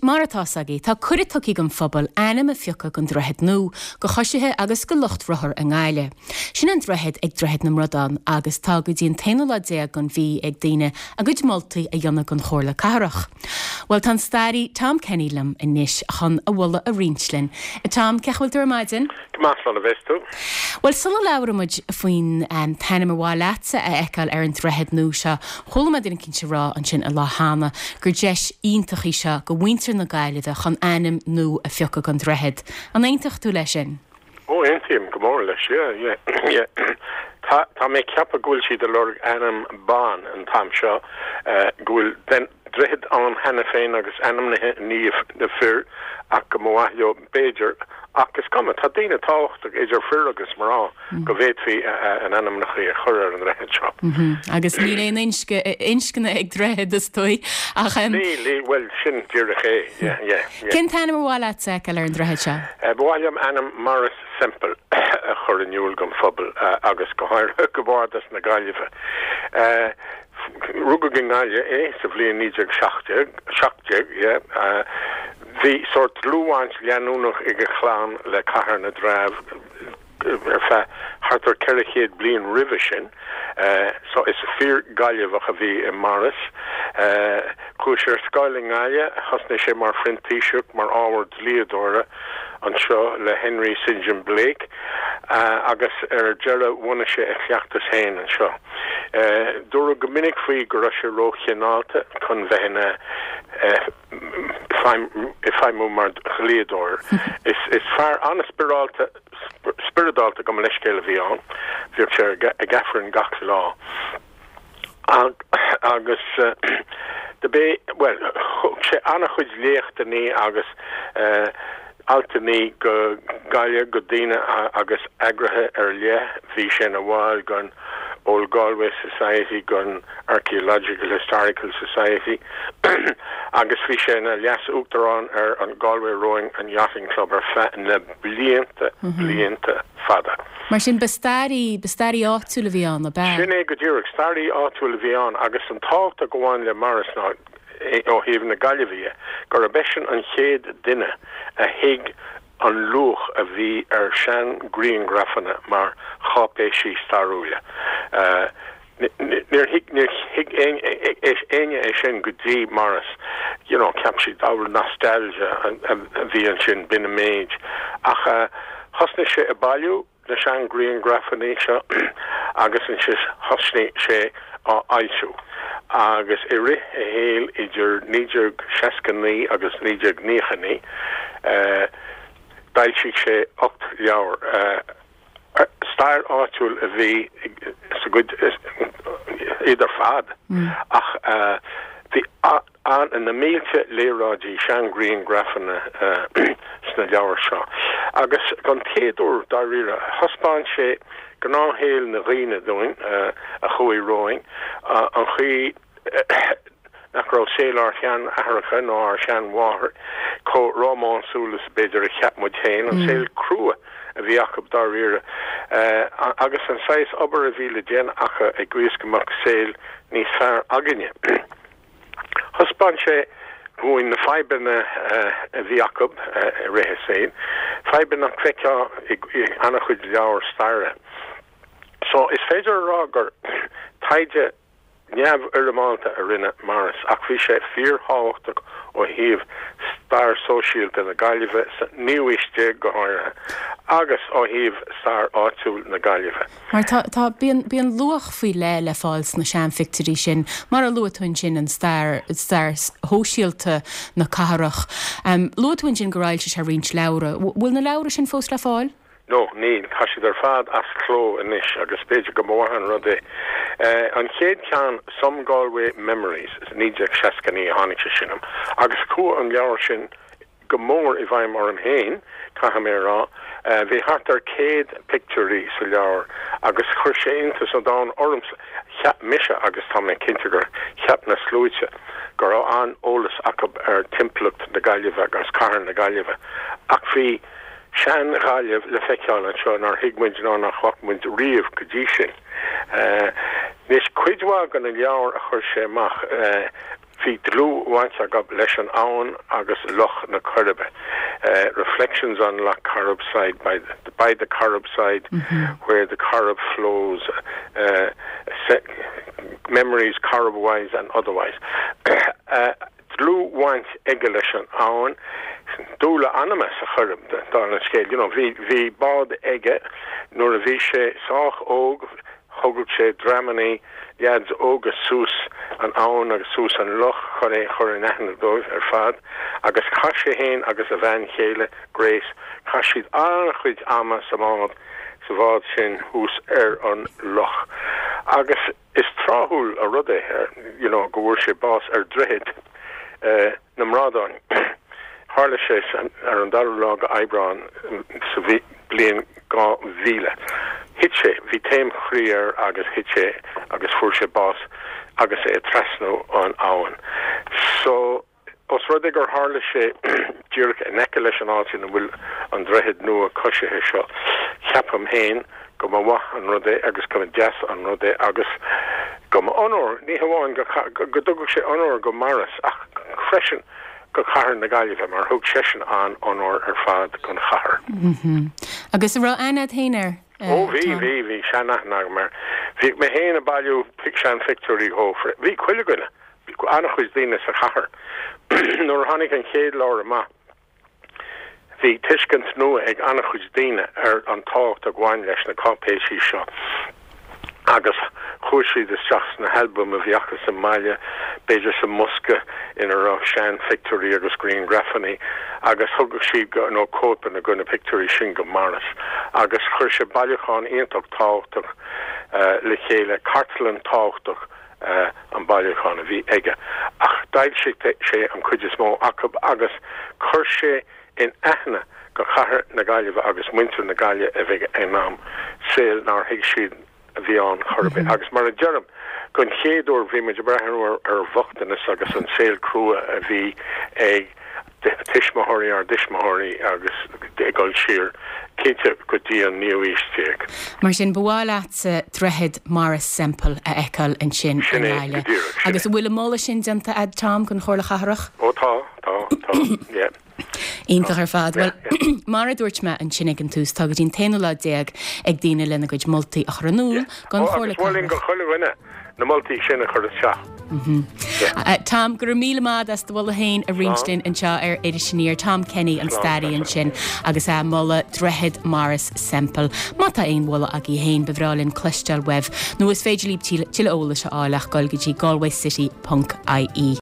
Mar atá 's agaibh, tá cuireadh tugtha don phobal ainm a phiocadh don droichead nua, do choisithe agus do lucht rothar i nGaillimh. Sin an droichead ag Droichead na mBradán agus tá go dtí an t-aonú lá déag den mhí ag daoine a gcuid moltaí a dhéanamh don Chomhairle Cathrach. Bhuel, tá an staraí Tom Kenny liom anois chun a mholadh a roinnt linn. A Tom, cén chaoi a bhfuil tú ar maidin? Go maith, slán a bheas tú. Bhuel, sula labhraíonn muid faoin t-ainm ar mhaith leatsa a fheiceáil ar an droichead nua seo, chuala mé duine eicínt ag rá ansin an lá cheana gur deis iontach í seo do mhuintir na Gaillimhe chun ainm nua a phiocadh don droichead. An aontódh tú leis sin? Ó, aontaím go mór leis, yeah, yeah, yeah. Tá, tá mé ag ceapadh go bhfuil siad ag lorg ainm ban an t-am seo, go bhfuil droichead ann cheana féin agus ainmnithe i ndiaidh na fir ach go mba mhaith leo, b'fhéidir, ach is cuma, tá daoine tábhachtach idir fir agus mná go bhféadfaí a n-ainmneacha a chur ar an ndroichead seo. Agus níl aon inscne ag droichead, is dóigh, ach. Níl, níl, bhuel, sin díreach é, yeah, yeah, yeah. Cén t-ainm ar mhaith leat a fheiceáil ar an droichead seo? Ba mhaith liom ainm Maurice Semple a chur in iúl don phobal agus go háirithe go Bhardas na Gaillimhe. Rugadh i nGaillimh é sa bhliain 1917, 17, yeah. Bhí sórt dlúthbhaint leanúnach ag a chlann le Cathair na dTreabh ar feadh thart ar 400 bliain roimhe sin, so is fíor-Ghaillimheach a bhí i Maurice. Chuaigh sé ar scoil i nGaillimh, thosnaigh sé mar phrintíseach mar ábhar dlíodóra anseo le Henry St John Blake agus ar deireadh bhunaigh sé a chleachtas féin anseo. Dúradh go minic faoi go raibh sé róchineálta chun bheith ina ag feidhmiú mar dhlíodóir. Is fear an-spioradálta, spioradálta gabh mo leithscéal a bhí ann. Bhíodh sé ag Aifreann gach lá. Agus do b'é, bhuel, thug sé an-chuid léachtannaí agus altannaí go Gaillimh go daoine agus eagraithe ar leith. Bhí sé ina bhall den Old Galway Society, den Archaeological Historical Society agus bhí sé ina leas-uachtarán ar an Galway Rowing and Yachting Club ar feadh na blianta, blianta fada. Mar sin, ba staraí, ba staraí áitiúil a bhí ann, ab ea? Sin é go díreach, staraí áitiúil a bhí ann agus an tábhacht a ghabhann le Maurice ná, ó thaobh na Gaillimhe dhe, gurb eisean an chéad duine a thuig an luach a bhí ar sean-ghrianghrafanna mar cháipéisí stairiúla. Níor thuig, níor thuig éinne é sin go dtí Maurice. You know, cheap siad, oh, nostalgia a bhí ansin, b'in an méid. Ach thosnaigh sé ag bailiú na sean-ghrianghrafanna seo agus ansin thosnaigh sé á fhoilsiú. Agus i rith a shaoil idir 1969 agus 1999, d'fhoilsigh sé 8 leabhar. Stair áitiúil a bhí sa gcuid iad ar fad ach bhí na mílte léaráidí, seanghrianghrafanna sna leabhair seo. Agus don chéad uair dáiríre, thaispeáin sé gnáthshaol na dhaoine dúinn a chuaigh romhainn, an chaoi nach raibh saol ár sean-aithreacha ná ár sean-mháthair chomh rómánsúil is b'fhéidir a cheap muid féin, an saol crua a bhí acu dáiríre, agus an saghas obair a bhí le déanamh acu i gcaoi is go mbeadh saol níos fearr againne. Thaispeáin sé dhúinn na fadhbanna a bhí acu i rith a saoil, fadhbanna nach bhfeicfeá i an-chuid leabhar staire. So, is féidir a rá gur taighde neamhfhoirmeálta a rinne Maurice ach bhí sé fíorthábhachtach ó thaobh stair sóisialta na Gaillimhe sa naoú haois déag go háirithe agus ó thaobh stair áitiúil na Gaillimhe. Mar tá, tá, bíonn, bíonn luach faoi leith le fáil sna seanphictiúirí sin, mar a luaigh tú ansin, an stair, stair shóisialta na cathrach. Luaigh tú ansin gur fhoilsigh sé roinnt leabhra. Bhfuil na leabhra sin fós le fáil? No, níl. Tá siad ar fad as cló anois agus b'fhéidir go mba mhaith an rud é. An chéad cheann, Some Galway Memories, 1969 a tháinig sé sin amach agus chuaigh an leabhar sin go mór i bhfeidhm orm féin, caithfidh mé a rá. Bhí thart ar 100 pictiúirí sa leabhar agus chuir sé iontas an domhain ormsa. Cheap mise, agus tá mé cinnte gur cheap na sluaite, go raibh an-eolas acu ar timpeallacht na Gaillimhe agus cathair na Gaillimhe ach bhí sean-Ghaillimh le feiceáil anseo nár thuig muid ná nach bhfaca muid riamh go dtí sin. Anois, cuid mhaith de na leabhair a chuir sé amach. Bhí dlúthbhaint acu leis an abhainn agus Loch na Coiribe, Reflections on Lough Corrib side by the, by the Corrib side where the Corrib flows, Memories Corrib-wise and otherwise. Dlúthbhaint aige leis an abhainn, dúil a anama sa Choirib, dála an scéil. You know, bhí, bhí bád aige nuair a bhí sé sách óg, Thugadh sé dreamannaí leaids óga suas an abhainn agus suas an loch chun é a chur in aithne dóibh ar fad agus chaith sé fhéin agus a bhean chéile, Grace, chaith siad an-chuid ama sa mbád, sa bhád sin thuas ar an loch. Agus is tráthúil an rud é, you know, go bhfuair sé bás ar Droichead na mBradán. Tharla sé ar an dara lá de Aibreán sa bhliain 2000. Thit sé, bhí taom chroí air agus thit sé agus fuair sé bás agus é ag trasnú an abhainn. So, os rud é gur tharla sé díreach in aice leis an áit ina bhfuil an droichead nua coisithe seo, ceapaim féin go mba mhaith an rud é agus go mba deas an rud é agus go mba onóir, ní hamháin go, go dtugadh sé onóir go Maurice ach freisin go cathair na Gaillimhe mar thug seisean an-onóir ar fad don chathair. Agus an raibh aithne agat féin air, Ó bhí, bhí, bhí sean-aithne agam air. Bhíodh mé féin ag bailiú sean-phictiúirí dhó. Bhí chuile dhuine, an-chuid daoine sa chathair. Nuair a tháinig an chéad leabhar amach, Bhí tuiscint nua ag an-chuid daoine ar an tábhacht a bhain leis na cáipéisí seo agus chuaigh siad isteach sna halbaim a bhí acu sa mbaile, b'fhéidir sa mbosca ina raibh seanphictiúirí agus grianghrafanna agus thugadh siad go, nó cóipeanna de na pictiúirí sin go Maurice agus chuir sé bailiúchán iontach tábhachtach le chéile, cartlann tábhachtach. an bailiúchán a bhí aige, ach d'fhoilsigh sé an chuid is mó acu agus chuir sé in aithne go chathair na Gaillimhe agus muintir na Gaillimhe a bhí ag an am, saol nár thuig siad a bhí ann chor ar bith. Agus mar a deirim, don chéad uair bhí muid ag breathnú ar bhochtanas agus an saol crua a bhí ag tuismitheoirí ár dtuismitheoirí agus ag dul siar, cinnte, go dtí an naoú aois déag. Mar sin, ba mhaith leatsa Droichead Maurice Semple a fheiceáil ansin i Sin é, go nGaillimh. díreach, sin Agus é. an bhfuil an moladh sin déanta a'd, Tom, don Chomhairle Chathrach? Ó tá, tá, tá, yeah. Iontach ar fad. Yeah, Bhuel, yeah. mar a dúirt mé ansin ag an tús, tá go dtí an t-aonú lá déag ag daoine lena gcuid moltaí a chur in iúl Yeah. don Ó, Chomhairle agus mholfainn Cathrach. go chuile dhuine na moltaí sin a chur isteach. Tom, go raibh míle maith agat as do mholadh féin a roinnt linn anseo ar Iris Aniar. Tom Kenny, an staraí ansin agus é ag moladh Droichead Maurice Semple. Má tá aon mholadh agaibh féin, ba bhreá linn cloisteáil uaibh. Nó is féidir libh tuilleadh eolais a fháil ach dul go dtí galwaycity ponc ie.